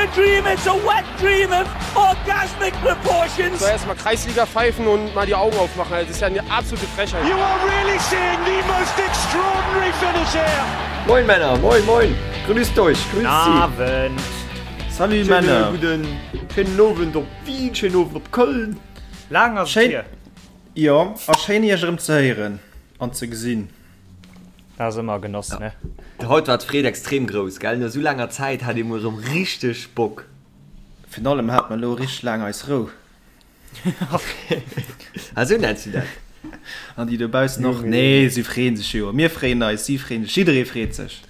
a dream, it's a wet dream of orgasmic proportions. So erstmal Kreisliga pfeifen und mal die Augen aufmachen. Das ist ja eine absolute Frechheit. You are really seeing the most extraordinary finish here. Moin Männer, moin moin, grüßt euch, grüßt sie. Abend. Salut Schöne Männer. guten, schönen Owend op Wien, schönen Owend op Köln. Laang ass et Schéin, hier. jo, a schéin iech erëm ze héieren an ze gesinn. Dat ass ëmmer e Genoss, ne? Haut war d'Freed extrem grouss, gell? No sou laanger Zäit hat ee mol erëm richteg Bock. Virun allem hate mer elo richteg laang eis Rou. Ah, sou nenns du dat? An déi dobaussen och. Nee, si freeën sech jo. Mir freeën eis, si freeën sech, jidderee freet sech.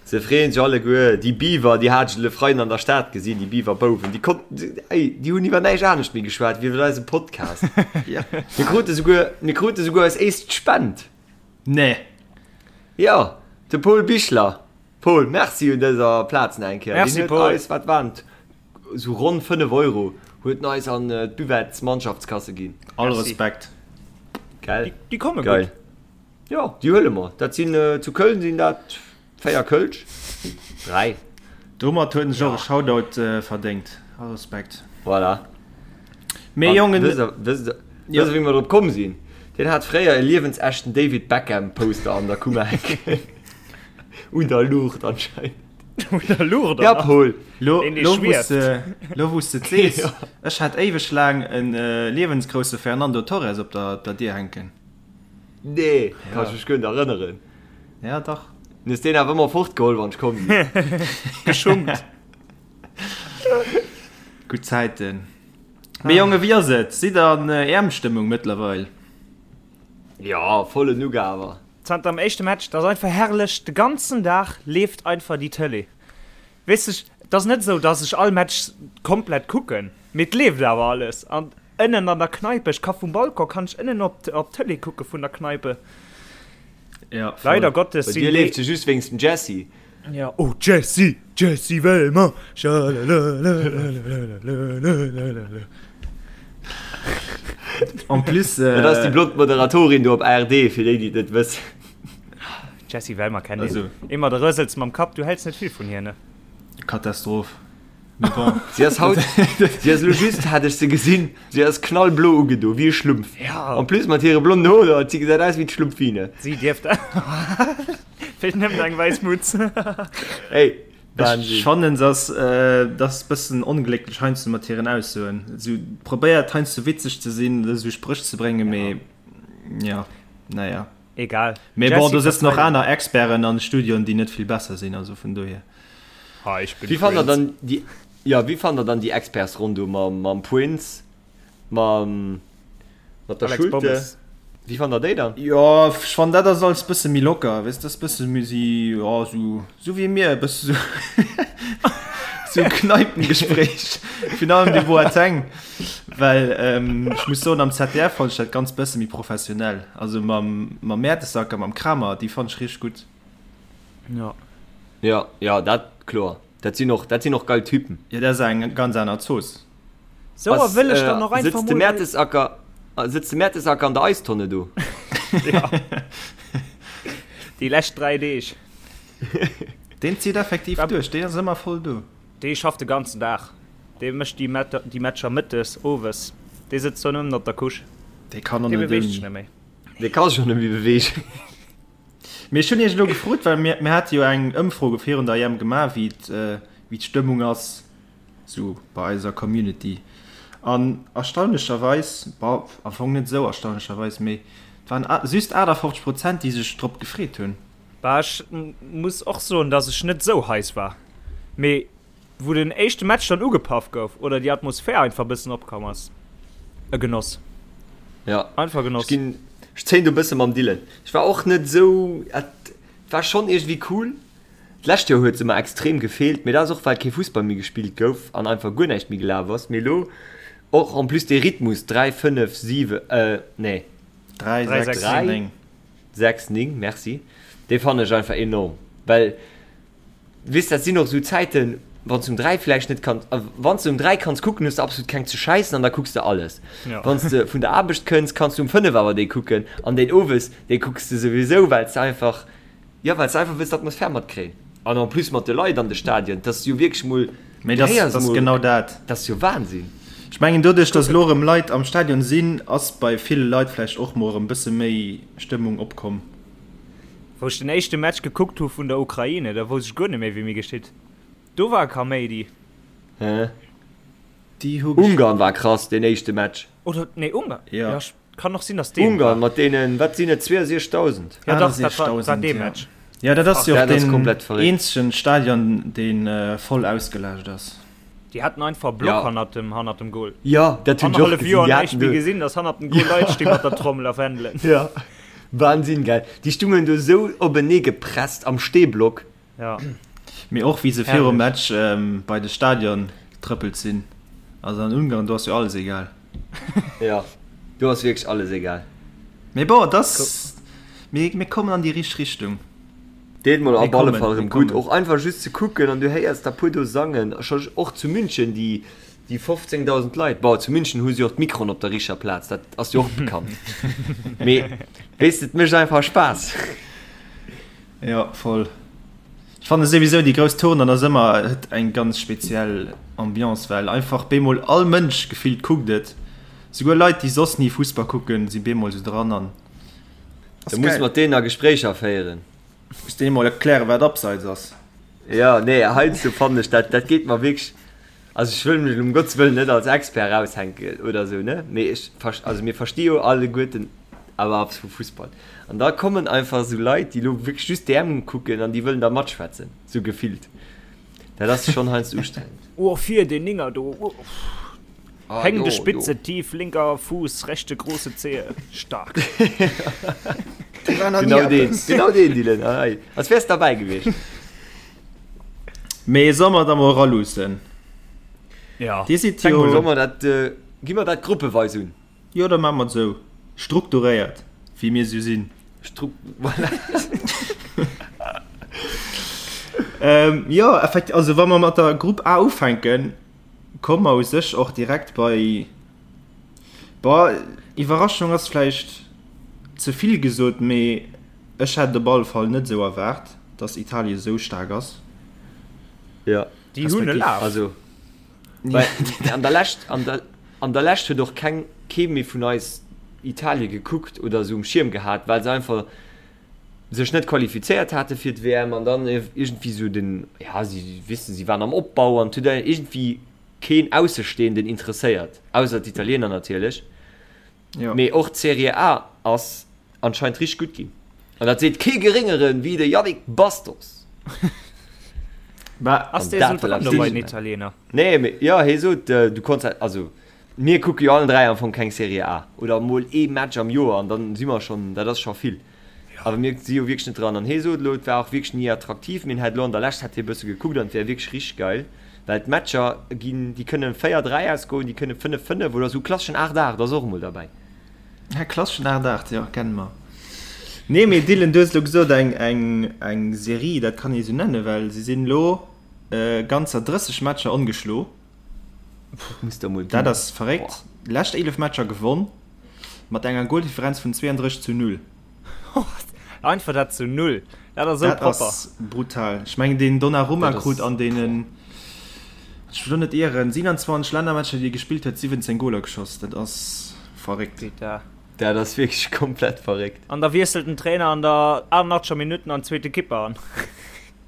Se freeën sech alleguer. Déi Beaver, déi hat ech le Freiden an der Stad gesinn, déi Beaver-Bouwen, déi konnten, ey, déi hunn iwwer näischt anescht méi geschwat wéi iwwer eise Podcast. Mir krute souguer, mir krute souguer eis éischt Spend. Nee. Jo, de Paul Bichler. Paul, merci un dëser Plaz nach eng Kéier. Merci, Deen huet Paul. eis, wat waren et, esou ronn 5 Euro huet en eis an d'Buvettes-Mannschaftskasse ginn. All Merci. Respekt. Gell? Déi, déi komme Geil. gutt. Jo, déi huele mer. Dat sinn, zu Köln sinn dat 4 Kölsch. 3. Domat huet en sech och e Shoutout verdéngt. All Respekt. Voilà. Mee Jongen. Wësst der, wësst der, wësst der, wéi mer drop komm sinn? Deen hat fréier e liewensechten David Beckham Poster an der Kummer hänken. Un der Luucht anscheinend. Un der Luucht, Ja, Paul. Lo, Deen, dee lo wou s schwieft. de, lo wou s de et sees, ech hat éiweg laang en liewensgrousse Fernando Torres op der, der Dier hänken. Nee, kann ech mech guer net erënneren. Ja, dach. Du hues deen awer ëmmer fortgeholl, wann ech komm sinn. Geschunkt. Gutt Zäiten. Mee Jongen, wéi ass et? Sidd der an EM-Stëmmung mëttlerweil? Ja, vollen Ugawer. Zanter dem éischte Match, dat ass einfach herrlech, de ganzen Dag leeft einfach déi Tëlee. Weess de, et ass net esou, dass ech all Match komplett kucken, mee et leeft awer alles. An ënnen an der Kneipe, ech ka vum Balcon kann ech ënnen op d'Tëlee kucke vun der Kneipe. Ja, voll. Leider Gottes Bei sinn dir déi. leeft se just wéinst dem Jesse. Ja, oh Jesse, Jesse Wellmer, schalalalalalalalalala. En plus, Dat ass déi blond Moderatorin do op ARD, fir déi, déi et net wëssen. Jesse Wellmer kennt een. Also. Ëmmer de rësels mam Kapp, du häls net vill vun hir, ne? Katastroph. Mee bon. Si ass haut, si ass elo just, hat ech se gesinn, si ass knallblo ugedo, wéi e Schlumpf. Ja. En plus mat hire blonden Hoer, si gesäit aus wéi d'Schlumpfine. Si dierft. Feelt nëmmen eng wäiss Mutz. Hey, Ech Wahnsinn. fannen se ass dat ass bëssen onglécklech heiansdo mat hiren Aussoen. Sou probéiert heiansdo witzeg ze sinn oder sou Spréch ze bréngen, mee ja, naja. Egal. Mee bon, Jesse do sëtzen och verzeit. aner Experten an Studioen, déi net vill besser sinn, also vun dohier. Ha, ich bin Wéi fannt der Prince. dann déi, ja, wéi fannt der dann déi Expertsronn do mam, mam Prince, mam, mat der Alex Schulte? Pommes. Wéi fannt der déi dann? Jo, ech fannen dat ass alles bësse méi locker, weess, dat ass bësse méi si, jo, sou, sou wéi mir, e bësse sou, sou Kneipengespréich, virun allem de Boateng, well ech muss soen, am ZDF fonnt ech dat ganz bësse méi professionell, also mam, mam Mertesacker, mam Kramer, déi fonnt ech richteg gutt. Ja. Jo, jo, dat kloer, dat sinn och, dat sinn och geil Typen. Jo, dat ass eng ganz aner Zooss. Sou, a wëll ech dann och einfach sëtzt de mol. Mertesacker, sëtzt de Mertesacker an der Eistonne do? Ja. Déi lescht 3 Deeg. Deen zitt effektiv duerch, deen ass ëmmer voll do. Dee schafft de ganzen Dag. Dee mécht déi déi Matcher mëttes, owes. Dee sëtzt do nëmmen op der Couche. Dee kann och Dee net beweegt sech ouni. net méi. Dee ka sech och net méi beweegen. Mee ech hunn iech elo gefrot, well mir, mir hate jo eng Ëmfro virun der EM gemaach, wéi wéi d'Stëmmung ass. Sou bei eiser Community. An erstaunlecherweis, bon, am Fong net esou erstaunlecherweis, mee et waren just 58 Prozent, déi sech drop gefreet hunn. Bah, ech muss och soen, dass ech net esou heiß war, mee wou den éischte Match dann ugepaff gouf oder déi Atmosphär einfach bëssen opkomm ass, e Genoss. Ja, Einfach Genoss. ech ginn, ech zéien do e bësse mam Dylan. Ech war och net esou, et war schonn iergendwéi cool, D'lescht Joer huet se mer extrem gefeelt, mee dat ass och well kee Fussball méi gespillt gouf an einfach guer näischt méi gelaf ass. Mee elo och en plus dee Rhythmus 3, 5, 7, euh nee 3, 3, 6, 6, 3, 9. 6, 9, merci, dee fannen ech einfach enorm, well weess dat sinn och esou Zäiten, wann s de um 3 vläicht net kanns, wann s de um 3 kanns kucken, hues de absolut keng ze schäissen an da kucks de alles. Ja. Wann s de vun der Aarbecht kënns, kanns du um 5 awer dee kucken an deen owes, dee kucks de souwisou, well s de einfach Jo, well s de einfach wëlls d'Atmosphär matkréien. An en plus mat de Leit an de Stadien, et ass jo wierklech mol. Mee das, das genau dat. Dat ass jo Wahnsinn. Ech mengen doduerch, datt elo erëm Leit am Stadion sinn, ass bei ville Leit vläicht och mol erëm bësse méi Stëmmung opkomm. Wou ech den éischte Match gekuckt hu vun der Ukraine, da wousst ech guer net méi wéi mir geschitt. Do war Kaméidi. Hä? Déi hu Ungarn war krass deen éischte Match. Oder nee Ungarn. Ja. Ja, kann och sinn datt deen Ungarn mat deenen, wat sinn et, 62.000? Ja dach, dat war, war dee Match. Ja dat ass jo och deen eenzegen Stadion deen voll ausgelaascht ass. Déi haten einfach e Block hannert dem, hannert dem Goal. Ja, dat hunn ech och gesinn. Joer näischt méi gesinn, datt hannert dem Goal Leit sti mat der Trommel a Fändelen. Ja, Wahnsinn, gell? Déi stungen do esou openee gepresst am Stehblock. Ja. Mee och wéi se virum Match bei de Stadion getrëppelt sinn. Also an Ungarn, do ass jo alles egal. Ja, do ass wierklech alles egal. Mee bon, et ass, mir, mir kommen an déi richteg Richtung. Deet mol op alle Fall erëm gutt, och einfach just ze kucken an du héiers der puer do sangen. Scho och zu München déi, déi 15.000 Leit. Bon, zu München hu se och d'Mikroen op der richteger Plaz, dat ass jo och bekannt. Mee weess de, et mécht einfach Spaass. Jo, voll. Ech fanne souwisou déi grouss Tournen ass ëmmer, huet eng ganz speziell Ambiance, well einfach bemol all Mënsch gefillt kuckt et. Souguer Leit déi soss ni Fussball kucken si bemol sou dran an ass Da muss mat deenen a Gespréicher féieren. Muss deene mol erklären wat Abseits ass. Jo, nee, heiansdo fannen ech dat, dat geet mer wierklech, also ech wëll mech elo um Gottes Wëllen net als Expert raushänken oder sou, ne, mee ech, also mir versti jo alleguerten awer eppes vu Fussball. An da kommen einfach esou Leit, déi elo wierklech just d'EM kucken an déi wëllen da matschwätzen, sou gefillt. Dat ass schonn heiansdo ustrengend. Oh fir deen Ninger do, oh hängende Spitze, tief linker Fuß, rechte große Zehe, stark. Genau deen, genau deen Dylan, hei, als wäers derbäi gewiescht. Mee soll mer da mol eraluussen? Ja. Dir sidd jo. Soll mer dat, gi mer dat gruppeweis un? Jo, da maache mer et esou. Strukturéiert, wéi mir esou sinn. Stru voilà. Ähm, jo, effekt, also wa mer mat der Grupp A ufänken, komme mer u sech och direkt bei, boah, Iwwerraschung ass vläicht ze vill gesot, mee ech hätt et op alle Fall net esou erwaart, dass Italien esou staark ass. Ja. Déi hunn e Laf. Also, Well an der Lescht, an der, an der Lescht huet och keng, kee méi vun eis Italie gekuckt oder esou um Schierm gehat, well se einfach sech net qualifizéiert hate fir d'WM an dann iergendwéi esou den, ja, si wissen, si waren am Opbau an et huet iergendwéi keen Aussestehenden interesséiert, ausser d'Italiener natierlech. Jo. Mee och d'Serie A ass anscheinend richteg gutt ginn. An dat seet kee geréngeren wéi de Yannick Bastos. Bah, Ass An dee dat sou wëll dran eppes do bei den heeschen. Italiener? Nee, mee jo, hie sot, du konns dat, also mir kucke jo allen 3 am Fong keng Serie A oder mol ee Match am Joer an dann si mer schonn, dat ass scho vill. Awer mir si jo wierklech net dran. An hie sot elo, et war och wierklech ni attraktiv, mee en hätt elo an der Lescht hätt hie e bësse gekuckt an et wär wierklech richteg geil, well d'Matcher ginn, déi kënne 4, 3 ausgoen, déi kënne 5, 5 oder esou klasseschen 8, 8 ass och emol derbäi. Ja, klasseschen 8, 8, jo, kenne mer. Nee, mee Dylan, du hues elo gesot, eng, eng, eng Serie, dat kann ee sou nennen, well si sinn elo ganzer 30 Matcher ongeschlo. Dat muss der mol Dat ginn. ass verréckt. Lescht 11 Matcher gewonn, mat enger Goldifferenz vun 32 zu 0. Einfach dat zu 0, dat ass esou Dat propper. ass brutal. Ech mengen deen Donnarumma Dat ass krut an deenen, ech wëll lo net ieren, 27 Lännermatcher déi e gespillt huet, 17 Goler geschoss. Dat ass verréckt. Peter. Dat ass wierklech komplett verréckt. An da wiesselt den Trainer an der 88. Minutt an zweete Kipper an.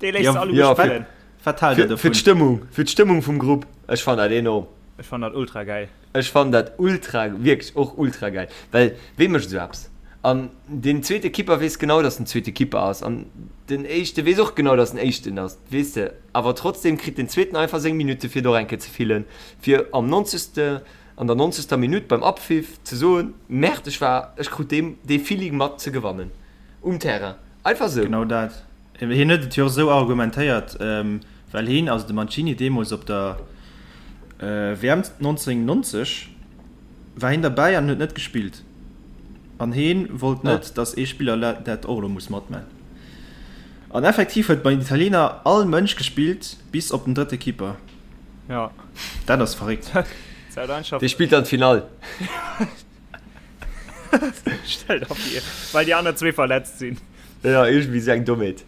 Dee léisst Ja, se alleguer ja, fir- spillen. Wat haalt der Fir, fir dovun? d'Stëmmung, fir d'Stëmmung vum Grupp. Ech fannen dat enorm. Ech fannen dat ultra gäil. Ech fannen dat ultra, wierklech och ultra gäil, well wee mécht esou eppes? An deen zweete Kipper weess genau, dass en zweete Kipper ass an den éischte weess och genau, dass en éischten ass, weess de. Awer trotzdem kritt den zweeten einfach seng Minutte fir et och eng Kéier ze fillen, fir am nonzegste, an der nonzegster Minutt beim Abpfiff ze soen, Merde, ech war, ech krut dee, dee Feeling mat ze gewannen um Terrain. Einfach esou. Genau dat. Hien huet et jo och esou argumentéiert, well hien, also de Mancini, deemools op der WM 1990 war hien derbäi an huet net gespillt. An hien wollt net, datt ee Spiller dat och elo muss matman. An effektiv huet bei den Italiener all Mënsch gespillt, bis op den drëtte Keeper. Ja. Dat ass verréckt. Dee spillt dann d'Finall. Stell der vir, well déi aner zwee verletzt sinn. Ja, iergendwéi esou eng Dommheet.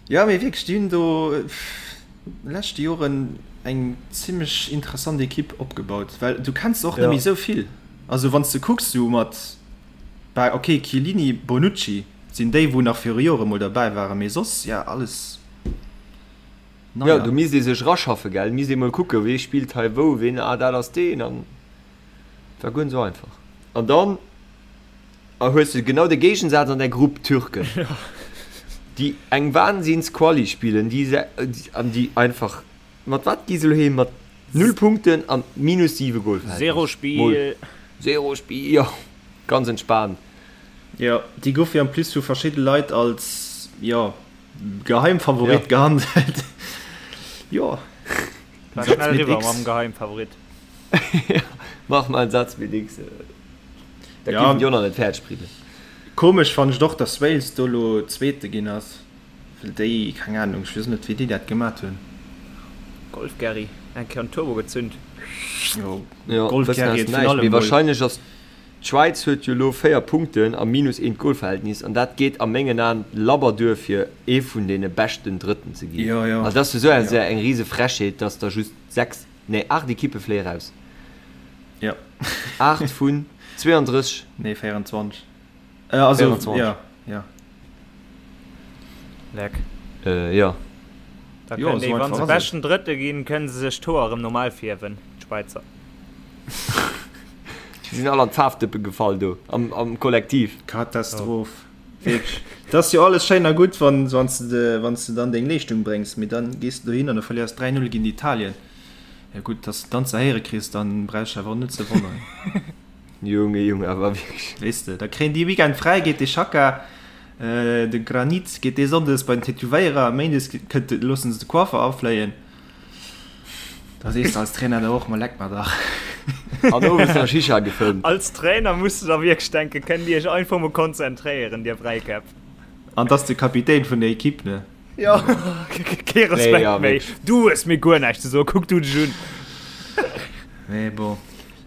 Ja, mee wierklech, déi hunn do. leschte Joren eng zimmlech interessant Ekipp opgebaut, well du kenns och net méi esou vill. Also wann s de kucks sou mat, bah ok Chiellini, Bonucci sinn déi wou nach viru Jore mol derbäi waren, mee soss ja alles neier. Jo, do misst ee sech eraschaffen, gell, misst ee mol kucken, wee spillt hei wou, ween, ah dat ass deen an war guer net esou einfach. An dann hues de genau de Géigensaz an der Grupp, d'Türken, déi eng Wahnsinns-Quali spillen, déi an déi einfach, mat wat gi se elo heem, mat null Punkten an minus 7 Golverhältnis. Zero Spiel. Zero Spiel, jo, ganz entspaant. Jo, déi goufe jo en plus vu verschidde Leit als, jo, Geheimfavorit gehandelt. Jo. War schnell eriwwer mam Geheimfavorit. Mach mal en Satz mit X. Dat ja. géifen déi och nach net fäerdeg bréngen. Komesch fannen ech et och, dass Wales do lo Zweete ginn ass, well déi, keng Ahnung, ech weess net wéi déi dat gemat hunn. Golf Gerry, eng Kéier en Turbo gezünd. Jo, ja, Golf Gerry huet virun allem mol. Wahrscheinlech ass d'Schwäiz huet jo lo 4 Punkten a minus eent Golverhältnis an dat geet a mengen Aen labber duer fir ee vun deene beschten Drëtten ze ginn. Jo, jo. Also dat ass jo sou eng rise Frechheet, dass der just 6, nee 8 Ekippe fléie raus. Jo. 8 vun 32. Nee, 24. Äh, also, 24. Ja, ja. Leck. Äh, ja. Da jo, déi, wann se beschten Drëtte ginn, kënnen se sech d'Hoer erëm normal fierwen, d'Schwäizer. Si sinn all an d'Faarfdëppe gefall do am, am Kollektiv. Katastroph. Oh. Wierklech. Dat ass jo alles schéin a gutt, wann, wann s de, wann s de dann deng Leeschtung bréngs, mee dann gees de dohin an da verléiers 3-0 géint Italien. Ja gutt, dass de dann ze héiere kriss, dann brauchs de awer och net ze wonneren. Junge, Junge, awer wierklech. Weess de, da kréien déi Weekend fräi, geet de Xhaka, de Granit geet dee Sonndes bei den Tätowéierer, Méindes kënnt, loossen se de Coiffer afléien. Da sees de als Trainer da och, ma leck mer dach. An owes nach Shisha gefëmmt. Als Trainer muss de da wierklech denken, kënnt Dir iech einfach mol konzentréieren, dir Bräikäpp. An 't ass de Kapitän vun der Equipe, ne? Jo, kee Respekt nee, méi. Du hues mir guer näischt ze soen, kuck du dech un. Nee, bon.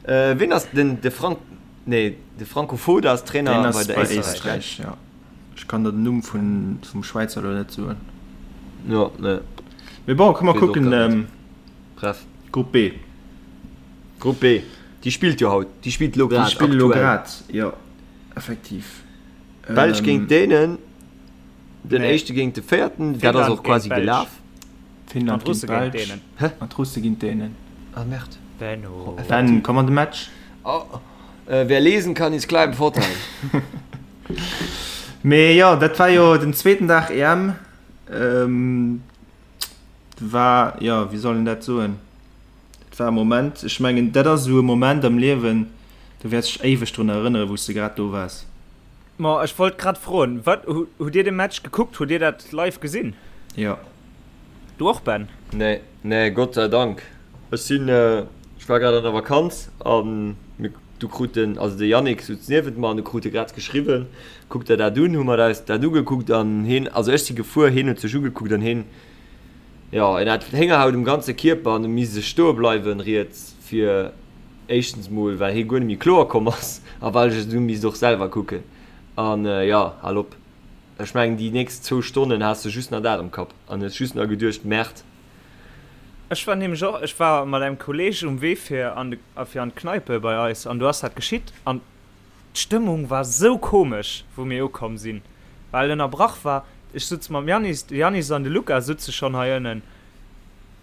Äh, wien ass den de Frank nee, de Franco Foda ass Trainer Den ass bei der bei Éisträich. Éisträich, ja. Ech kann der den Numm vun, vum Schwäizer elo net soen. Ja, nee. Mee bon, komm mer Weess och kucken, grad net. ähm, Bref. Grupp B. Grupp B, déi spillt jo haut, déi spillt elo Déi grad spillen elo aktuell. grad, jo, effektiv. Belsch géint Ähm, Dänen. Den Nee. éischte géint de véierten, dat ass Finnland och géint quasi d'Belsch. gelaf. Finnland An d'Russe géint géint d'Belsch. d'Dänen. Hä? An d'Russe géint d'Dänen. Ah merde. Benno. Ben, komm an de Match. Oh, äh, wer lesen kann, ist klar im Vorteil. Mee jo, dat war jo den zweeten Dag EM. Ähm, war, jo, wéi soll een dat soen? Dat war e Moment, ech mengen, dat ass esou e Moment am Liewen, do wäerts dech éiweg drun erënneren, wou s de grad do waars. Ma ech wollt grad froen, wat, hutt dir de Match gekuckt? Hutt dir dat live gesinn? Jo. Du och Ben? Nee, nee, Gott sei Dank. Ech sinn, ech war grad an der Vakanz an mir, du krut den, also de Yannick sutz niewent mer an du krut e grad geschriwwen, kuck der dat un, hu mer eis dat ugekuckt an heen, also ech si gefuer, heen huet sech ugekuckt an heen, jo, en hat Héngerhaut um ganze Kierper an e misst sech stoe bleiwen riets fir Éischtens mol well hie guer net méi kloer komm ass a well ech et du misst och selwer kucken. An jo, hal op. Ech mengen déi nächst zwou Stonnen has de just nach dat am Kapp an hues just nach geduecht, Merde. Ech war nämlech och, ech war mat engem Kolleg um Wee fir an de, fir an d'Kneipe bei eis an do ass dat geschitt an d'Stëmmung war sou komesch wou mir ukomm sinn, well ënnerbrach war. Ech sutz mam Yannis, de Yannis an de Luca sutze schonn hei ënnen.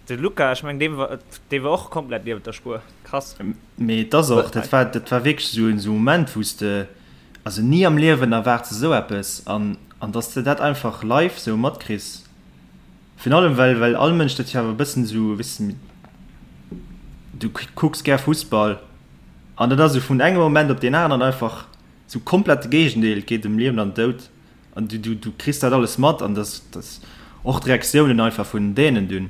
De Luca, ech mengen dee war, dee war och komplett niewent der Spuer. Krass. Mee et ass och, dat war, dat war wierklech esou en esou Moment, wou s de, also ni am Liewen erwaarts de esou eppes an, an dass de dat einfach live esou matkriss, virun allem well, well all Mënsch dat jo awer e bëssen esou, weess de, du kucks gär Fussball an dat ass esou vun engem Moment op deen aneren einfach esou komplett de Géigendeel, et geet ëm Liewen an Doud. An du, du, du kriss dat alles mat an das, das och d'Reaktiounen einfach vun den Dänen dunn.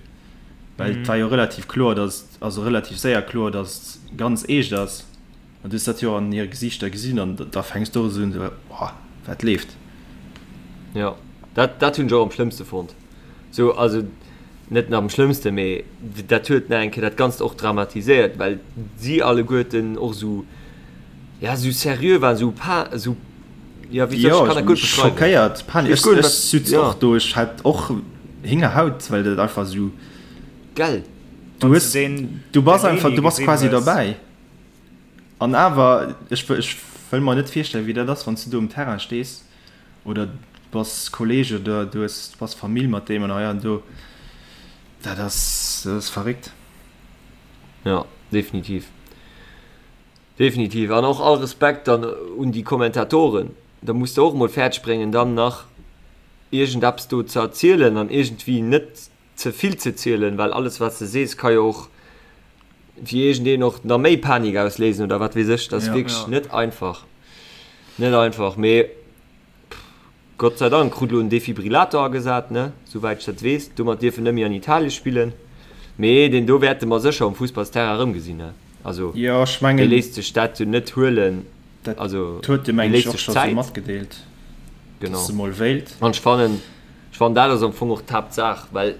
Well et war jo relativ kloer, dass, also relativ séier kloer, dass et ganz eescht ass. An du hues dat jo an hire Gesiichter gesinn an da fänks du och esou un, esou, Boah, wat leeft? Jo, dat, dat hunn ech och am schlëmmste fonnt. Sou, also net am schlëmmste, mee dat huet nach eng Kéier dat Ganzt och dramatiséiert, well si alleguerten och esou, ja, esou seriö waren, esou pa, esou Ja, wéi soll, ech kann dat guer net beschreiwen. Schockéiert, Panik. Ech, ech sutz och do, ech hat och Héngerhaut, well dat einfach esou. Gell? Du hues, du bass einfach, du bass quasi derbäi. An awer, ech, ech wëll mer net virstellen, wéi dat ass, wann s du do um Terrain stees oder du bass Kolleeg oder du hues, du bass Famill mat deem an hei an do. Dat ass, dat ass verréckt. Ja, definitiv. Definitiv. An och all Respekt dann un déi Kommentatoren. Da muss de och emol fäerdeg bréngen, dann nach iergendeppes do ze erzielen an iergendwéi net ze vill ze zielen, well alles wat s de sees ka jo och fir iergendeen och nach méi Panik ausléisen oder wat weess ech. Dat ass wierklech net einfach. Net einfach, mee Gott sei Dank krut elo en Defibrillator agesat, ne, souwäit ech dat weess. Domat dierf en net méi an Italie spillen. Mee deen do wäerte mer sécher um Fussballsterrain erëmgesinn, ne. Also Jo, ech mengen, dee léisst sech dat jo net huelen. Dat Also huet e dee mengen ech léisst och sech scho sou Zäit. matgedeelt, Genau. dass e mol wéilt. An ech fannen, ech fannen dat ass am Fong och d'Haaptsaach, well,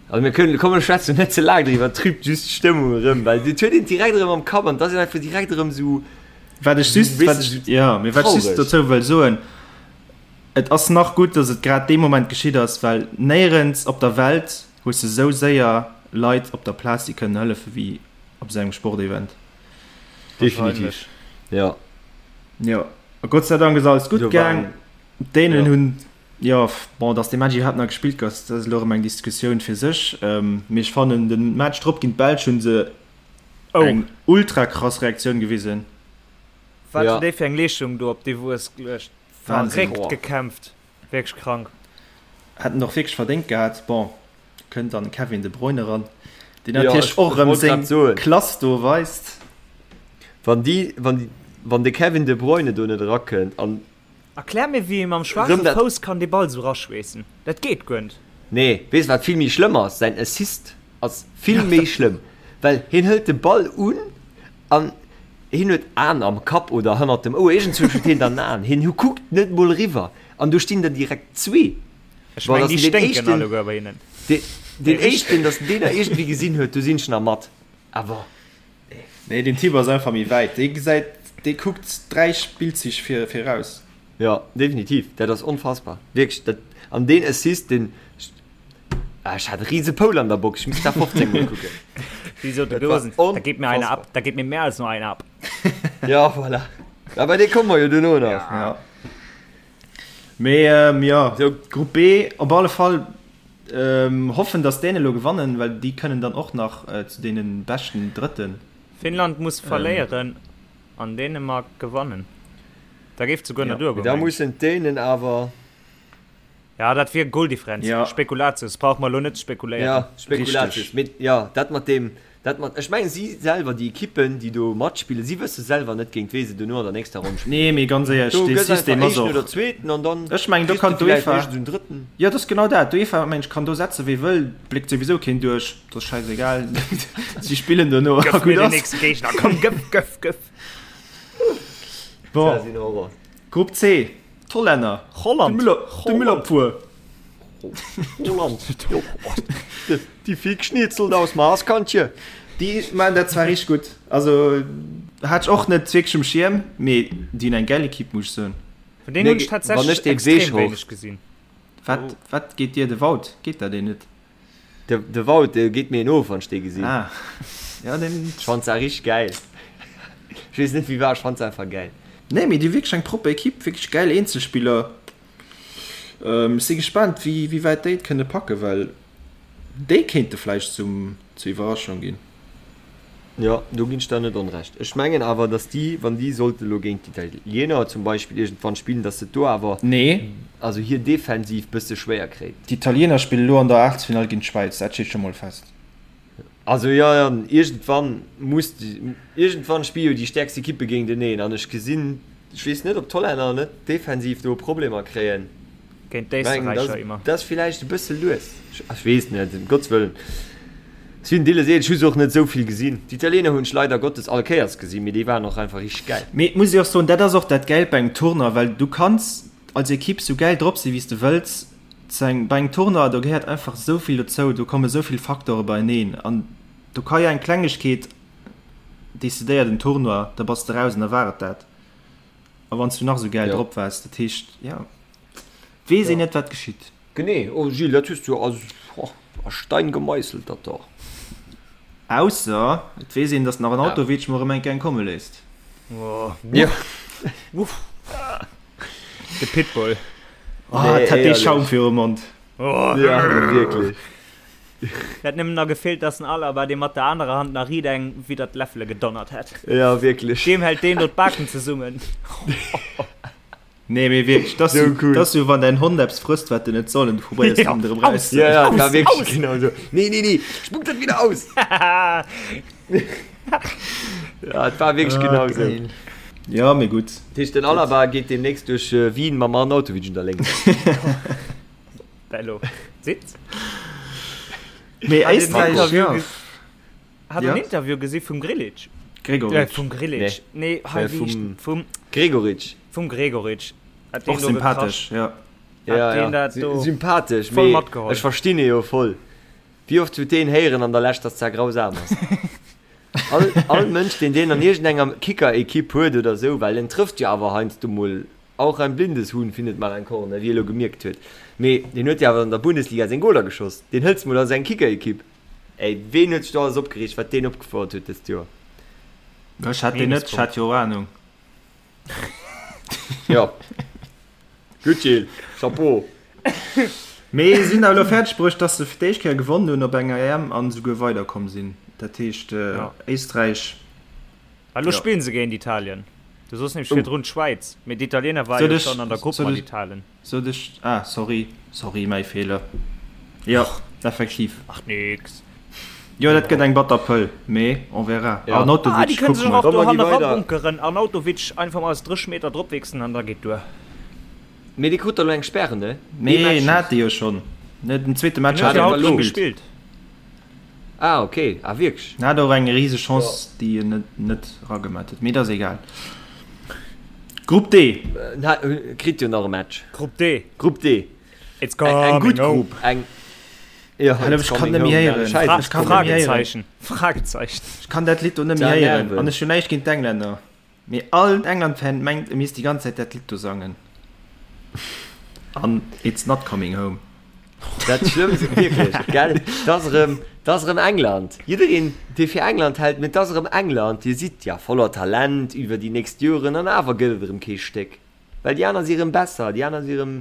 also mir kënnen, komm mir schwätzen net ze laang driwwer, trübt just d'Stëmmung erëm, well et huet een direkt erëm am Kapp an et ass een einfach direkt erëm esou, Wat ech just, wat ech, ja, mee wat ech just dozou wëll soen, Et ass nach gutt, dass et grad dee Moment geschitt ass, well néierens op der Welt hues de sou séier Leit op der Plaz, déi kënnen hëllefen, wéi op esou engem Sportevent. Definitiv, jo. Jo, a Gott sei Dank ass alles gutt gaang. D'Dänen hunn, jo, bon, dass dee Match iwwerhaapt nach gespillt gouf, dat ass elo erëm eng Diskussioun fir sech, mee ech fannen, de Match drop géint d'Belsch hu se Oh. Eng ultra krass Reaktioun gewisen. Wat Ja. hunn déi fir eng Leeschtung do op déi Wues geluecht. Wahnsinn. Verréckt gekämpft. Wierklech krank. Hätten och wierklech verdéngt gehat. Bon, kënnt dann Kevin De Bruyne eran, deen Ja, natierlech ech- och ech erëm wollt seng grad soen. Klass do weist. Wann déi, wann déi, wann de Kevin De Bruyne do net erakënnt an Erklär mir wéi ee mam schwaache Rëm dat- Fouss kann dee Ball sou raschweessen. Dat geet guer net. Nee, weess wat vill méi schlëmm ass? Säin Assist ass vill méi schlëmm, well hien hëlt de Ball un an hien huet Aen am Kapp oder hannert dem Ouer, iergendzwousch huet hien dann Aen, hien kuckt net mol eriwwer an do stinn der direkt zwee. Ech Bon, meng dass déi en deen sténken éischten, alleguer bei hinnen. deen, deen éischten, dass en deen nach iergendwéi gesinn huet, do sinn ech nach mat, awer. Nee, den Typ ass einfach méi wäit. Dee gesäit, dee kuckt 3 Spillzich vir, viraus. Jo, definitiv, dat ass onfassbar, wierklech. Dat, an deen Assist, deen, ah, ech hat e riese Poul an der Box, ech misst dat 15 mol kucken. Wéi sot de Dat war Gosen, da geht mir einer ab, da geht mir mehr als nur einer ab. Ja, voilà. Ja, bei dee komme mer jo duerno nach. Ja. Mee, ähm, jo, Grupp B op alle Fall. Hoffen dass d'Dänen elo gewannen, well déi kënnen dann och nach zu deene beschten Drëtten. Finnland muss verléieren an Dänemark gewannen, da géif et souguer nach duergoen. Da mussen d'Dänen awer. Ja, dat wier Goldifferenz. Spekulatius, brauche mer elo net ze spekuléieren. Ja, Spekulatius. Mee jo, dat mat deem, Dat mat, ech mengen si selwer, déi Ekippen, déi do matspillen, si wësse selwer net géint wee se duerno an der nächster Ronn spillen. Nee, mee ganz éierlech, Do dee gëss einfach System ass Éischten och. oder Zweeten an dann Ech mengen, do kriss de kann villäicht d'UEFA. iergend esou en Drëtten. Jo, dat ass genau dat. D'UEFA, mengen ech, kann do setze wee wëll, bléckt souwisou keen duerch, dat ass schäisegal, si spillen duerno a Gëff mir gutt den ass. nächste Géigner, komm, gëff, gëff, gëff! Bon, Dat ass een Horror. Grupp C, d'Hollänner, de Holland, Müller, de Müllerpuer. Holland, déi vill Geschnitzelt aus Maaskantje. Déi maachen dat zwar richteg gutt, also hat ech och net wierklech um Schierm, mee déi hunn eng gäil Equipe, muss ech soen. Vun deenen hunn ech tatsächlech extrem wéineg gesinn. Wat, wat geet dir de Wout? Geet der deen net? De, de Wout, dee geet mir een of, wann ech dee gesinn. Ah, ja, deen. Ech fannt se richteg gäil. Ech weess net wéi war, ech fannt se einfach gäil. Nee, mee déi hu wierklech eng propper Equipe, wierklech gäil Eenzelspiller. Ech si gespaant, wéi wäit déi et kënne packen, well déi kéinte vläicht zum, zur Iwwerraschung ginn. Jo, do ginn ech der net onrecht. Ech mengen awer, datt déi, wann déi sollte elo géint d'Italiener zum Beispill iergendwann spillen, datt se et do awer, Nee. also hir Defensiv bësse schwéier kréien. D'Italiener spille lo an der Aachtelsfinall géint d'Schwäiz, dat steet scho mol fest. Also jo, jo, iergendwann muss, iergendwann spille jo déi stäerkst Ekippe géinteneen an ech gesinn, ech weess net, ob d'Hollänner net defensiv do Problemer kréien. Géint d'Éisterräicher immer. Dat ass villäicht e bësse lues, ech weess net, ëm Gottes Wëllen. Ech sinn deele seet, ech hu se och net esou vill gesinn. D'Italiener hunn ech leider Gottes all Kéiers gesinn, mee déi waren och einfach richteg gäil. Mee et muss ee och soen, dat ass och dat Gäilt bei engem Tournoi, well du kanns als Ekipp sou gäil drop sinn, wéi s de wëlls, Zu engem, bei engem Tournoi, do gehéiert einfach esou vill dozou, do komme esou vill Facteure beieneen an do ka jo eng Klengegkeet decidéiert en Tournoi, da bass de raus an da war et dat. A wann s du nach esou gäil Jo. drop waars, dat heescht, jo, weess een Jo. net, wat geschitt. Genee, oh Gilles, dat hues du a, oh, a Stein gemeisselt, dat do. Ausser et weess een, datt den Arnautovic mol erëm eng Kéier eng komme léisst. Jo. Wuff. De Pitbull. Oh, et hat dee Schaum virum Mond. Oh. Ja, wierklech. Et hätt nëmmen nach gefeelt, dass den Alaba dee mat der anerer Hand nach riit eng widder d'Läffele gedonnert hätt. Ja, wierklech. Deem hält deen do d'Baken zesummen. Nee, mee wierklech, dat ass Sou cool. dat ass sou, wann däin Hond eppes frësst, wat en net soll, an du probéiers Ja, him erëm aus! raus. Ja, ja, Aus! war wierklech Aus! genau sou. Nee, nee, nee, spuck dat wieder aus! Ja, et war wierklech genau sou. Geil. Ja, mee gutt. Dat heescht, den Alaba geet deemnächst duerch Wien mam Arnautovic un der Léngt. Bello. Sitz. Mee Hat een Éisträich, Interview ja. ges- Hat Ja. en Interview gesi vum Grillitsch? Gregoritsch. Äh, vum Grillitsch. Nee, nee hei, Äh, wéi heescht vum- vum, Gregoritsch. vum Gregoritsch. Hat deen Och do sympathesch, ja. Hat Ja, deen ja. dat do Sympathesch, voll mee matgeholl. ech verstinn e jo voll. Wéi oft huet deen héieren an der Lescht, dass dat grausam ass? All, all Mënsch, deen deen an iergendenger Kicker-Ekipp huet oder sou, well en trëfft jo awer heiansdo mol, auch ein blindes Huhn findet mal ein Korn, wéi e lo gemierkt huet, mee deen huet jo awer an der Bundesliga seng Goler geschoss, deen hëls mol a seng Kicker-Ekipp. Ey, ween huet sech do alles opgereegt, wat deen opgefouert huet dëst Joer? Ech hat deen net, ech hat jo och Ahnung. Jo. Gutt Gilles, Chapeau. Mee si hunn awer elo fäerdeg bruecht, dass se fir d'éischt Kéier gewonnen hunn op enger EM an esouguer weiderkomm sinn. Dat heescht Éisträich. A lo spillen se géint Italien. Du soss nämlech virdrun d'Schwäiz, mee d'Italiener ware jo schonn an der Grupp mat Italen. Sot ech, ah sorry, sorry, mäi Feeler. Jo, effektiv. Macht nix. Jo, dat gëtt eng batter Pëll, mee on verra. Ja. Arnautovic, Ah, déi kënne kucke sech mol. och do Komm, mer gi hanne weider. rabunkeren. Arnautovic einfach mol aus 30 Meter dropwichsen an da geet duer. Mee dee krut der lo eng Sperre, ne? Ee Nee, Match en just. hat déi jo schonn. Ne, den zweete Match Den hat huet jo en haut net schonn gespillt. gespillt. Ah, okay. Ah, wierklech? En hat och eng riseg Chance, déi en net, net eragemat huet. Mee dat ass egal. Grupp D. En hat, kritt jo nach e Match. Grupp D. Grupp D. It's Eng, eng coming gutt home. Grupp. Eng, ja, Hallo, it's ech kann coming net méi home. héieren. Scheiße. Ech kann net méi héieren. Fragezeichen. Fragezeichen. Ech kann dat Lidd do net méi Da héieren. nerven. An ech hunn näischt géint d'Englänner. Mee all England-Fan mengt, e misst déi ganz Zäit dat Lidd do sangen. An It's not coming home. Dat Schlëmmst, wierklech, gell, 't ass erëm, 't ass erëm England. Jiddereen, dee fir England hält, mee 't ass erëm England. Dir sidd ja voller Talent iwwer déi nächst Joren an awer gëtt et erëm kee Stéck. Well déi aner si erëm besser, déi aner si erëm.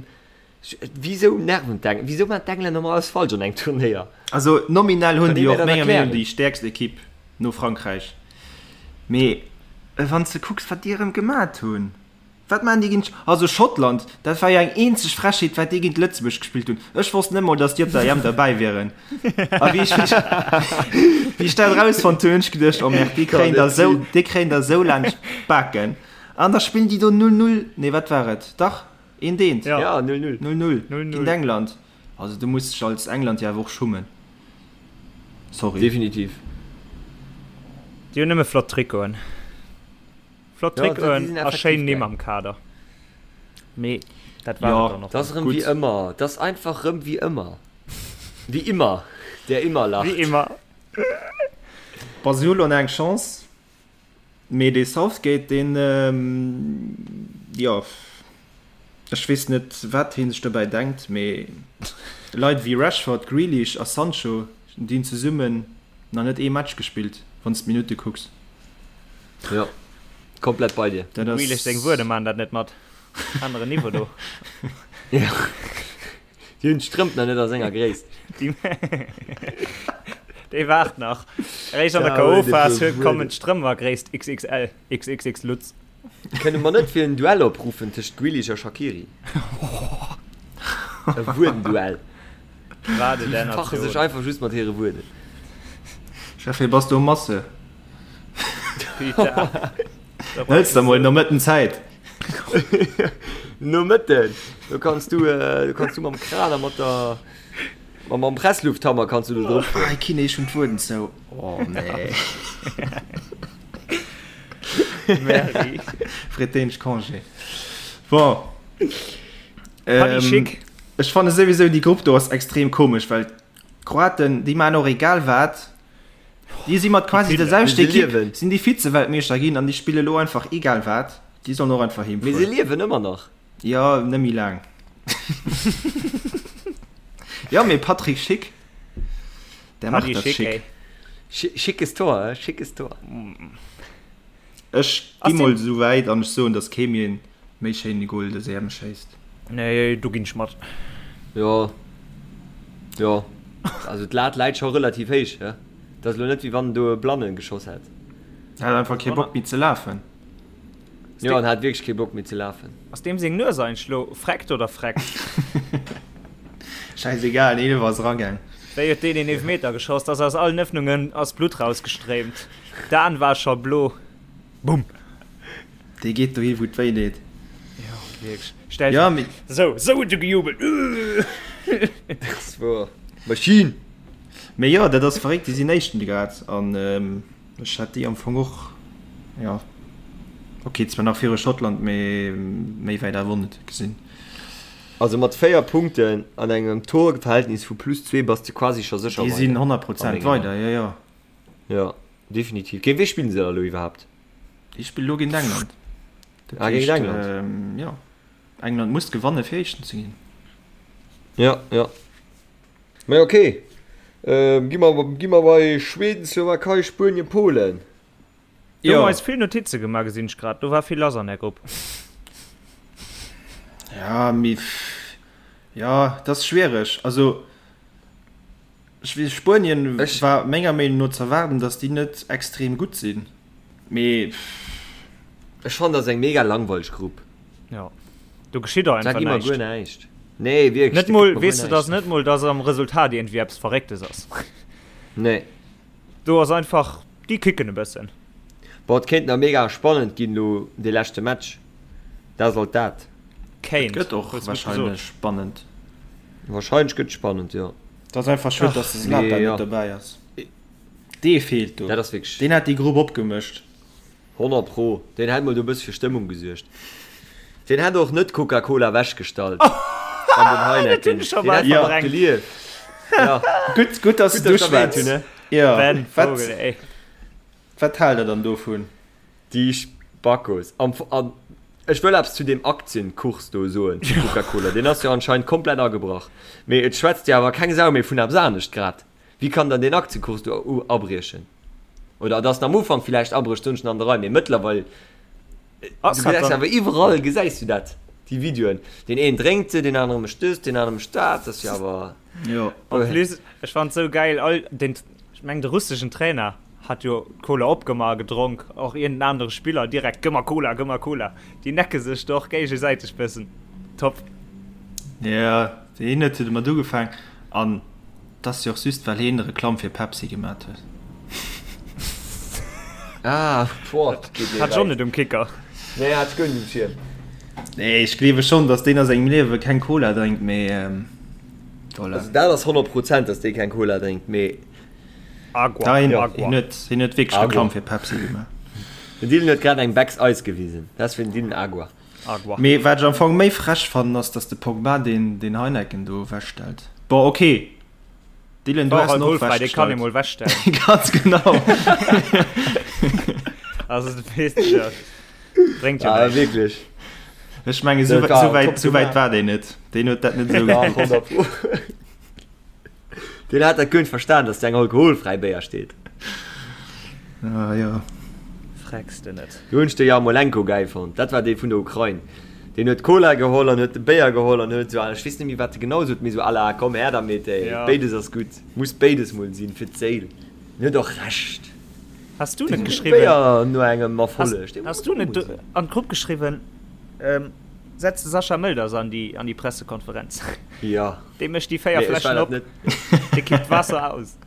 Wisou nerven d'Eng, wisou maachen d'Englänner ëmmer alles falsch an engem Turnéier? Also nominell hunn Kann déi ee mir och dat menger Meenung erklären? déi stäerkst Ekipp no Frankräich. Mee wann s de kucks wat déi erëm gemat hunn, wat maachen déi géint, also Schottland, dat war jo eng eenzeg Frechheet wat déi géint Lëtzebuerg gespillt hunn. Ech wosst net mol datt déi op der EM derbäi wieren. A wéi ech wéi ech dat erausfonnt hunn, hunn ech geduecht, oh merde, déi kréien der esou, déi kréien der esou laanscht d'Baken. An da spillen déi do 0, 0, nee wat war et, dach Eent eent. Ja, 0-0. 0-0 géint England. Also du muss dech als England jo awer och schummen. Sorry. Definitiv. Déi hunn nëmme flott Trikoten. Flott Ja, déi Trikoten sinn a effektiv schéin Nimm geil. am Kader. Mee dat war Ja, et dann och. Dat ass erëm Gutt. wéi ëmmer. Dat ass einfach rëm wéi ëmmer. Wie immer, der immer lacht. Wie immer. Bon, si hu lo nach eng Chance. Mee dee Southgate, deen, jo, ech weess net, wat hie sech dobäi denkt, mee Leit wéi Rashford, Grealish a Sancho, déi hunn zesummen nach net ee Match gespillt, wann s d'Minutte kucks. Jo, komplett bei dir. Dat Dem Grealish seng Wuerde ass. maachen dat net mat. Aneren Niveau do. Jo. Déi hunn d'Strëmp nach net a senger Gréisst. Déi waart nach. Eréischt an der KO-Phas kommen d'Strëmp a Gréisst XXL, XXX Lutz. Kënne mer net fir en Duell opruffen tëscht Grealish a Shaqiri? E Wuerdenduell. Wat e Si fache sech einfach just mat hire Wuerden. Chef, wéi bass du um Masse? Hëls der mol Nomëtten Zäit. Nomëtten, do kanns du, do kanns du mam Kran a mat der, mam Presslufthammer kanns du do drop fueren. Ei Kine, ech hunn d'Wueden zou. Oh nee. Merci. Freet deen Congé. Bon. Paddy Schick. Ech fanne souwisou déi Grupp do ass extrem komesch, well d'Kroaten, déi maachen och egal wat. Déi si mat quasi der selwechter Ekipp sinn déi Vize-Weltmeeschter ginn an déi spille lo einfach egal wat. Déi sollen och einfach heem Mee se fueren. liewen ëmmer nach. Jo, net méi laang. Jo, mee Patrick Schick, der macht Paddy dat Schick, schick. ey. Schickes Tor, schickes Tor. Ech gi mol esou wäit an ech soen, datt kee méi en méi schéine Goal dës EM schéisst. Nee, do ginn ech mat. Jo, jo. Also d'Lat läit scho relativ héich, he? Et ass elo net wéi wann en do e Blanne geschoss hätt. En hat einfach kee Bock méi ze lafen. Jo, en hat wierklech kee Bock méi ze lafen. Ass deem seng Nues eigentlech lo freckt oder freckt? Schäisegal, den Eelfer ass eragaang. Wéi huet deen een Eelfmeter geschoss, dass aus allen Öffnungen ass Blutt rausgestréimt. D'Aan war scho blo. Bumm! Dee geet dohi wou et wéi deet. Jo, wierklech. Stell ja, mee... Sou, sou huet e gejubelt. Dat ass woer. Maschinn! Mee jo, dat ass verréckt, déi sinn Éischten grad an ech hätt déi am Fong och, jo, ok, zwar nach viru Schottland, mee méi wäit awer och net gesinn. Also mat 4 Punkten an engem Torverhältnis vu plus 2 bass de quasi scho sécher weider. Déi sinn 100 Prozent weider, jo jo. Jo, definitiv. Géint wee spillen se da elo iwwerhaapt? Déi spillen elo géint England. Dat ah, géint England? Ähm, jo. England muss gewanne fir Éischten ze ginn. Ja, ja. Mä okay. Ähm, gi mer, gi mer bei Schweden, Slowakei, Spuenien, Polen. Do hu mer eis vill Notize gemaach, gesinn ech grad. Do war vill lass an där Grupp. Ja, mee ja, dat ass schwiereg. Also ech weess, Spuenien war menger Meenung no z'erwaarden, datt déi net extrem gutt sinn, mee. Ech fannen, dat ass eng mega langweileg Grupp. Jo, do geschitt och einfach näischt. Da gi mer guer näischt. Nee, wierklech. Net mol, weess de, datt net mol, datt am Resultat iergendwéi eppes Verrécktes ass. Nee. Do ass einfach, déi kicken e bëssen. Boah, et kéint nach mega spannend ginn elo dee leschte Match. Dat ass alt dat. Kéint, Et gëtt och hues gutt wahrscheinlech gesot. spannend. Wahrscheinlech gëtt et spannend, jo. Et ass einfach schued, dass de Zlatan Mee jo. net dobäi ass. Dee feelt do. Dat ass wierklech. Deen hätt déi Grupp opgemëscht. 100 pro. Deen hätt mol do e bësse fir Stëmmung gesuergt. Deen hätt och net d'Coca-Cola ewechgestallt an den Heineken. Deen hätt Jo. nach gelieft. Ja. Gutt, gutt, dass Gutt, du dass ech erwähnt schwätz. hunn, ne? Jo. Ben Wat, Vogel, ey. wat haalt der dann dovun? Déi Spackos. Am, an ech wëll eppes zu deem Aktienkurs do soen, zu Coca-Cola. Deen ass jo anscheinend komplett agebrach. Mee et schwätzt jo awer keng Sau méi vun eppes anescht grad. Wéi kann dann deen Aktienkurs do abriechen? Oder dass en am Ufank villäicht abrécht, soen ech an der Rei, mee mëttlerweil, du gesäis awer iwwerall gesäis du dat, déi Videoen, deen een drénkt se, deen anere mécht dëst, deen anere mécht dat, dat ass jo awer. Jo. En plus, ech fannen et sou gäil, all den, ech mengen de russeschen Trainer hat jo d'Cola opgemaach a gedronk, och iergend en anere Spiller direkt, gëmm mer Cola, gëmm mer Cola, déi necke sech do och géigesäiteg bëssen, top. Jo, deen huet jo domat ugefaang an T'ass jo och just well heen Reklamm fir Pepsi gemat huet. Ah, boah, dat geet mir Hat ech och wäit. net um Kicker. Nee, hat ech guer net um Schierm. Nee, ech gleewe schonn, dass deen a sengem Liewe keng Cola drénkt, mee voilà. Also dat ass 100 Prozent, dass dee keng Cola drénkt, mee. Agua, Da, hien, Agua. hien huet, hien huet wierklech Agua. Reklamm fir Pepsi gemaach. Den Dylan huet grad eng Becks Eis gewisen. Dat ass fir den Dylan Agua. Agua. Mee wat ech am Fong méi frech fannen ass, dass de Pogba deen deen Heineken do ewechstellt. Bon ok Dylan, du War has en och alkoholfrei, dee kann ee ewechgestallt. mol wechstellen. Ganz genau. Also du weess jo, bréngt jo Ah, näischt. wierklech. Ech menge sou Dat war sou wäit top sou wäit gemaach. war deen net. Deen huet dat net esou Dach, gekuckt. 100 Pro. Deen hat dat guer net verstan, dass do eng alkoholfräi Béier steet. Ah jo. Frecks de net. Do hunn ech de Jarmolenko gäil fonnt. Dat war dee vun der Ukrain. Deen huet Cola geholl an huet de Béier geholl an huet esou, ech weess net méi wat e genau sot, mee esou à la komm her damit ey, Ja. béides ass gutt, muss béides mol sinn fir d'Séil. En huet och Recht. Has du net Dee geschriwwen? Béier no engem Has, Erfolleg, dee has muss du och net mol do sinn. an d'Grupp geschriwwen, ähm, setz de Sascha Mölders an déi, an déi Pressekonferenz? Ja. Dee mécht déi 4 Nee, ech war Fläschen dat op, net. dee kippt d'Waasser aus.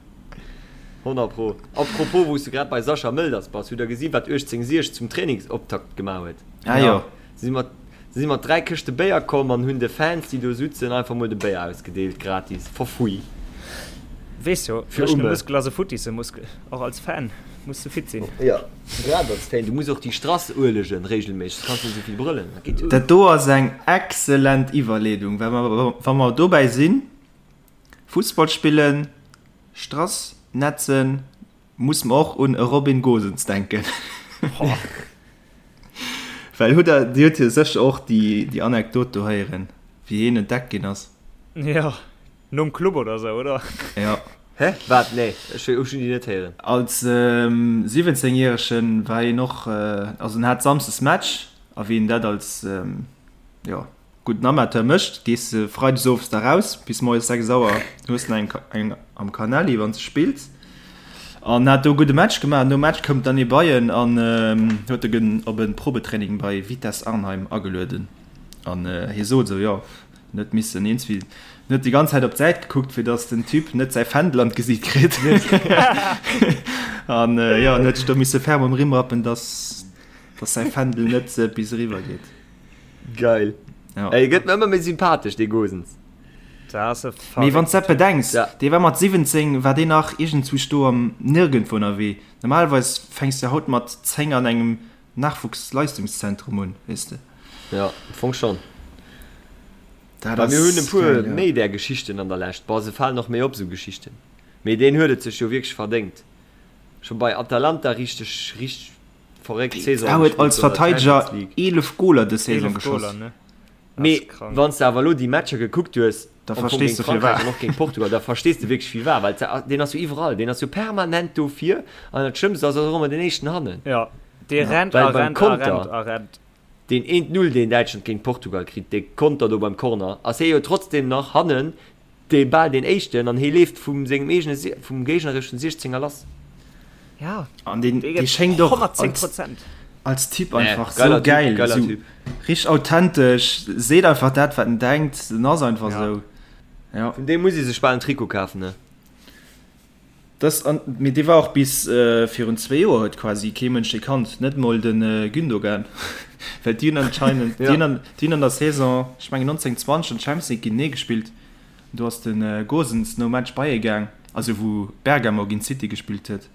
100 pro. Apropos, wou s du grad bei Sascha Mölders bass, hutt der gesi wat 1860 zum Trainingsoptakt gemaach huet? Ah jo. Si si mat, si si mat 3 Këschte Béier komm an hunn de Fans, déi do sutzen, einfach mol de Béier ausgedeelt, gratis, for free. Weess jo, Fir dréchene Umme. Muskel ass e futtisse Muskel. Och als Fan muss de fit sinn. Jo, grad als Fan. Du muss och déi Strass uelegen regelméisseg, soss kanns du net esou vill brëllen. Dat geet jo Dat net. do ass eng excellent Iwwerleedung, well mer, wa mer dobäi sinn, Fussball spillen, Strass netzen, muss mer och un e Robin Gosens denken. Well hutt der, Dir hutt jo sécher och déi, déi Anekdot do héieren, wéi hien entdeckt ginn ass. Jo, nom Club oder sou, oder? Jo. Hä? Wat? Nee, ech hu déi net héieren. Als 17 Järegen war hien och, also en hat Samsdes Match a wéi een dat als, jo, gudden Amateur mécht, gees de Freides owes da raus bis moies 6 Auer, hues nach eng eng am Canali wann s de spills an hat do e gudde Match gemaach. Nom Match koum dann ee bei en an huet e op e Probetraining bei Vitesse Arnheim agelueden an hie sot esou, jo, En huet missen eens wéi, en huet déi ganz Zäit op d'Säit gekuckt, fir datt den Typ net säi Fändel an d'Gesiit kritt. An jo, en huet sech do misse ferm um Rimm rappen, datt, datt säi Fändel net bis eriwwer geet. Geil. Ja. Ey, gëtt mir ëmmer méi sympathesch, dee Gosens. Dat ass e Mee wann s dat verréckten Typ. bedenks, Ja. dee war mat 17, war deen nach iergendzwousch do am Nirgendwo ënnerwee. Normalerweis fänks de haut mat 10 an engem Nachwuchsleistungszentrum un, weess de. Jo, am Fong schonn. Dat Mä mir hunn e ass puer geil, jo. méi där Geschichten an der Lescht. Bon, se falen och méi op, esou Geschichten. Mee deen huet et sech jo wierklech verdéngt. Scho bei Atalanta richteg, richteg verréckt Dee Saison huet gespillt als do an der Verteideger Champions League. 11 Goler dës Saison 11 geschoss. Goler, ne? Mee wann s de awer elo déi Matcher gekuckt hues, Da am Fong verstees géint de Frankräich firwat. an och géint Portugal, da verstees de wierklech firwat, well deen ass jo iwwerall, deen ass jo permanent do vir an dat Schlëmmst ass, ass och ëmmer den éischten hannen. Jo, dee rennt a Well beim rennt a Konter, rennt a rennt. deen eent Null, deen Däitschland géint Portugal kritt, dee Konter do beim Corner, ass hie jo trotzdem nach hannen dee bal deen éischten an hie leeft vum sengem eegene, vum géignereschen Siechzenger lass. Ja, An deen, dee dee gëtt schéngt och 110 als, Prozent. als Typ Nee, einfach sou geiler Typ, gäil, geiler sou Typ. richteg authentesch, seet einfach dat wat en denkt, en ass einfach Ja. sou. Ja. Vun deem muss ee sech bal en Trikot kafen, ne? Das an, mee dee war och bis virun zwee Joer huet quasi kee Mënsch dee kannt, net mol de Gündogan, well déi hunn anscheinend, déi hunn an, déi hunn an der Saison, ech mengen 19, 20 an Champions League géintenee gespillt, do ass de Gosens nom Match bei e gaang, also wou Bergamo géint City gespillt huet,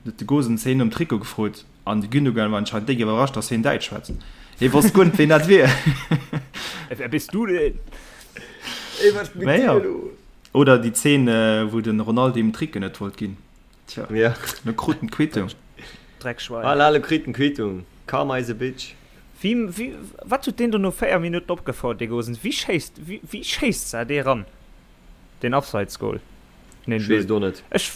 huet de Gosens heen nom Trikot gefrot an de Gündogan war anscheinend déck iwwerrascht, datt heen Däitsch schwätzt. Hee wosst guer net ween dat wier. Wer bist du denn? Ey, wat mit Mä dir jo. los? Oder déi Zeen, wou de Ronaldo him d'Tricke net wollt ginn. Tja, Ja. lo krut en d'Quittung. Dreckschwein. Ah, lo kritt en d'Quittung. Karma is a bitch. Wéi, wéi, wat huet deen do no 4 Minutten opgefouert, dee Gosens? Wéi schéisst, wéi, wéi schéisst se dee ran, deen Abseitsgoal? Ech weess et och net. Ech,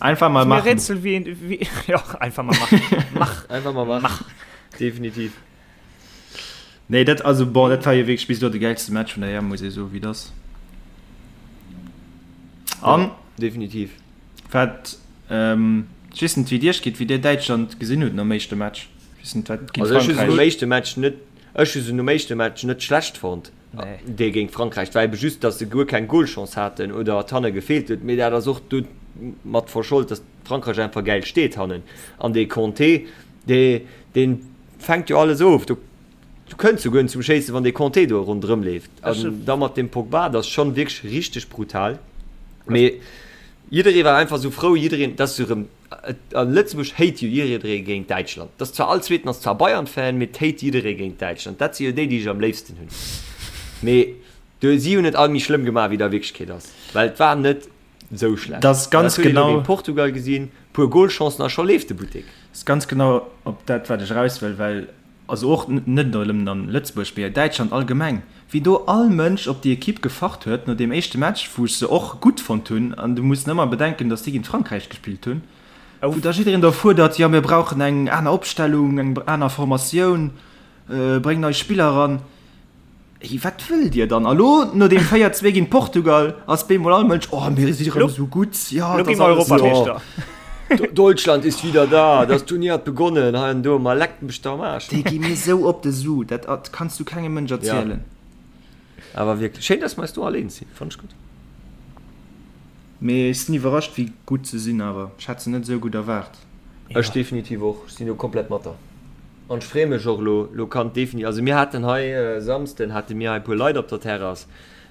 Einfach mal ass mir e machen. Rätsel, wéi een, wéi, jo, einfach mal machen. Mach! Einfach mal machen. Mach! Definitiv. Nee, dat, also bon, dat war jo wierklech bis elo de gäilste Match vun der EM, muss ee soen, wéi et ass. An Ja, definitiv. wat, ähm, ech weess net, wéi et iech geet, wéi dir Däitschland gesinn hutt nom éischte Match. Ech weess net, wat géint Also ech hu se nom Frankräich. éischte Match net, ech hu se nom éischte Match net schlecht fonnt, Nee. dee géint Frankräich. Et war ebe just, datt se guer keng Golchance haten oder et hanne gefeelt huet. Mee dat ass och domat verschold, datt Frankräich einfach gäil steet hannen. An dee Kanté, dee, deen fänkt jo alles of. Do kënns du guer net zum Schéissen, wann dee Kanté do ronderëm leeft. An da mat dem Pogba, dat ass schonn wierklech richteg brutal. Mee jidderee war einfach esou frou, jiddereen, dass se erëm, a Lëtzebuerg hate jo jidderee géint Däitschland. Dat ass zwar all Zweeten ass zwar Bayern-Fan, mee et hate jidderee géint Däitschland. Dat si jo déi, déi ech am léifsten hunn. Mee do, si hunn et all méi schlëmm gemaach, wéi et a Wierklechkeet ass, well et war net Sou schlecht. Dat ass ganz Dat huet een och genau. géint Portugal gesinn, puer Golchancen a scho leeft de Buttek. Ass ganz genau op dat wat ech eraus wëll, well also och net nëmmen an Lëtzebuerg, mee Däitschland allgemeng, wéi do all Mënsch op déi Equipe gefacht huet no deem éischte Match, wou ech se och gutt fonnt hunn, an du muss ëmmer bedenken, datt déi géint Frankräich gespillt hunn, wou da jiddereen da fuerdert, jo mir brauchen eng aner Opstellung, eng aner Formatioun, bréng nei Spiller eran. Hey, wat wëllt Dir dann? A lo, no deem 4, 2 géint Portugal, ass bemol all Mënsch, Oh, mir si rëm esou gutt, jo, Lo et gi ass mer alles esou. Europameeschter. Deutschland ist wieder da, das Turnier hat begonnen, hei an do, ma leckt mech doch am Aarsch. Déi gi mir esou op de Su, dat kanns du kengem Mënsch erzielen. Ja, awer wierklech. Schéin, dass mer eis do all eens sinn, fannen ech gutt. Mee ech sinn iwwerrascht, wéi gutt se sinn awer. Ech hat se net esou gutt erwaart. Ech definitiv och, ech sinn do komplett mat der. An ech freeë mech och elo, elo kann defini-, also mir haten hei e Samsden hate mir hei e puer Leit op der Terrass,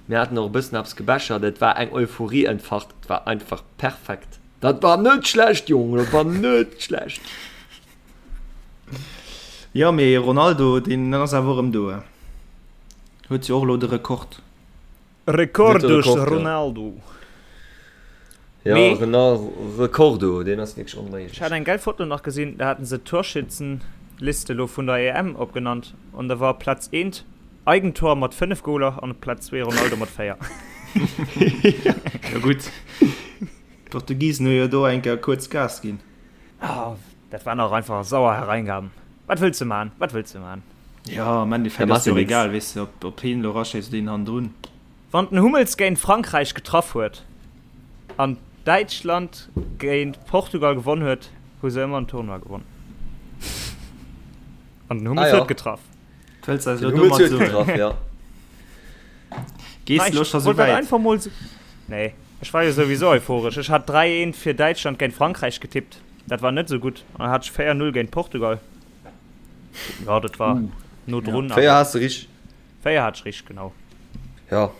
mir haten och e bëssen eppes gebechert, et war eng Euphorie entfacht, et war einfach perfekt. Dat war net schlecht, Jongen, dat war net schlecht. Jo, mee Ronaldo, deen ass awer och erëm do, huet jo och elo de Rekord. Recordos Ronaldo. Ja, Mee- Renal Recordo, deen ass wierklech onméiglech. Ech hat eng gäil Foto nach gesinn, da haten se d'Torschützenliste lo vun der EM opgenannt an da war op Platz eent Eigentor mat 5 Goler an op Platz zwee Ronaldo mat 4. Jo gutt. D'Portugisen hu jo do eng Kéier kuerz Gas ginn. Ah, dat waren och einfach sauer Hereingaben. Wat wëlls de man? Wat wëlls de man? Jo, am Endeffekt ass jo och egal, weess de, ob, ob heen elo eraschéisst oder een hannendrun. Wann den Hummels géint Frankräich getraff huet an Däitschland géint Portugal gewonn huet, hu se ëmmer en Tournoi gewonn. An den Hummels huet getraff. Wëlls eis elo domat soen? Ja. Gees de elo scho sou wäit? Einfach mol sou. Nee, ech war jo souwisou euphoresch. Ech hat 3, 1 fir Däitschland géint Frankräich getippt. Dat war net sou gutt. An dann hat ech 4, 0 géint Portugal. Ja, dat war no drun. 4 has de richteg. 4 hat ech richteg, genau. Ja.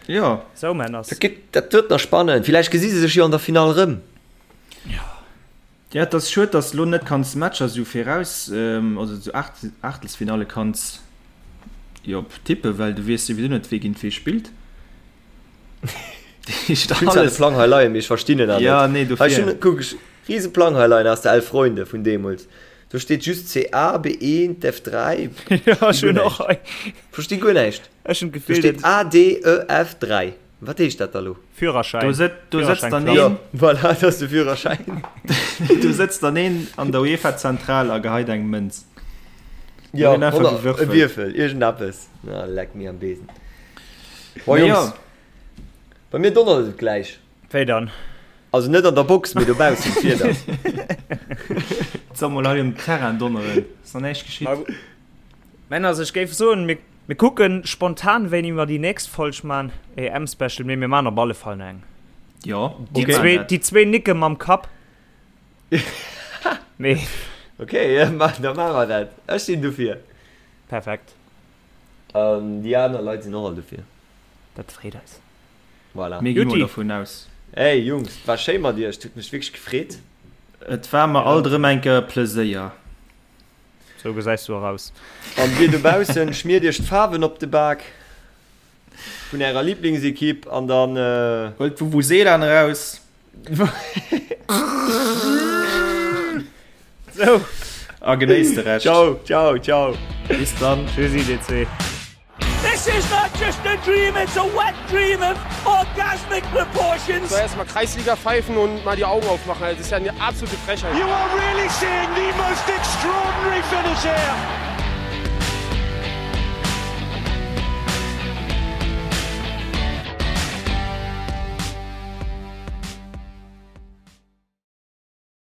Jo. Sou, Männers. Dat gëtt, dat gëtt nach spannend. Villäicht gesi se sech jo an der Finall erëm. Ja. Ja, et ass schued, dass de lo net kanns Matcher sou viraus, also sou Aachtelsfinalle kanns jo tippen, well du weess souwisou net, wee géint wee spillt. Ech hunn zwar de Plang hei leien, mee ech verstinn en awer net. Ja, nee, dofir. Ech hunn, kuck, ech rise Plang hei leien aus der Elf Freunde vun deemools. Do steet just CA, B1, F3. Ja, ech hunn och hei. Versti guer näischt. Ech hunn d'Gefill, Do steet A, D, E, F, 3. Wat heescht dat da lo? Führerschäin. Do sëtzt, do sëtzt dann een. Jo, voilà, dat ass de Führerschäin. Do sëtzt dann een an der UEFA-Zentral a geheit eng Mënz. Jo, e Wierfel, iergendeppes. Na, leck mir am Besen. Bon, Jungs, bei mir donnert et gläich. Wéi dann? Also net an der Box, mee dobaussen, d'Wieder. Et soll mol hei um Terrain donneren, ass nach näischt geschitt. Männer, ech géif soen, mir Mir kucken spontan wéini mer déi nächst Folg man, EM Special, mee mir man op alle Fall nach eng. Jo, déi zwee, déi zwee nicke mam Kapp. Mee. Okay, ja, ma, da maache mer dat. Ech sinn dofir. Perfekt. An déi aner Leit sinn och all dofir. Dat freet eis. Voilà. Mir gi mol dovun aus. Hey Jungs, et war schéi mat iech, et huet mech wierklech gefreet. Et war mer alt erëm eng Kéier e Pleséier. Sou gesäis du och aus. An dir dobaussen, schmiert iech d'Faarwen op de Bak vun ärer Lieblingsekipp an dann. Huelt d'Vuvuzelaen eraus. Sou. A genéisst de Rescht. Ciao, ciao, ciao. Bis dann. Tschüssi dir zwee. This is not just a dream, it's a wet dream of orgasmic proportions. Soll erstmal Kreisliga pfeifen und mal die Augen aufmachen. Das ist ja eine absolute Frechheit. You are really seeing the most extraordinary finish here.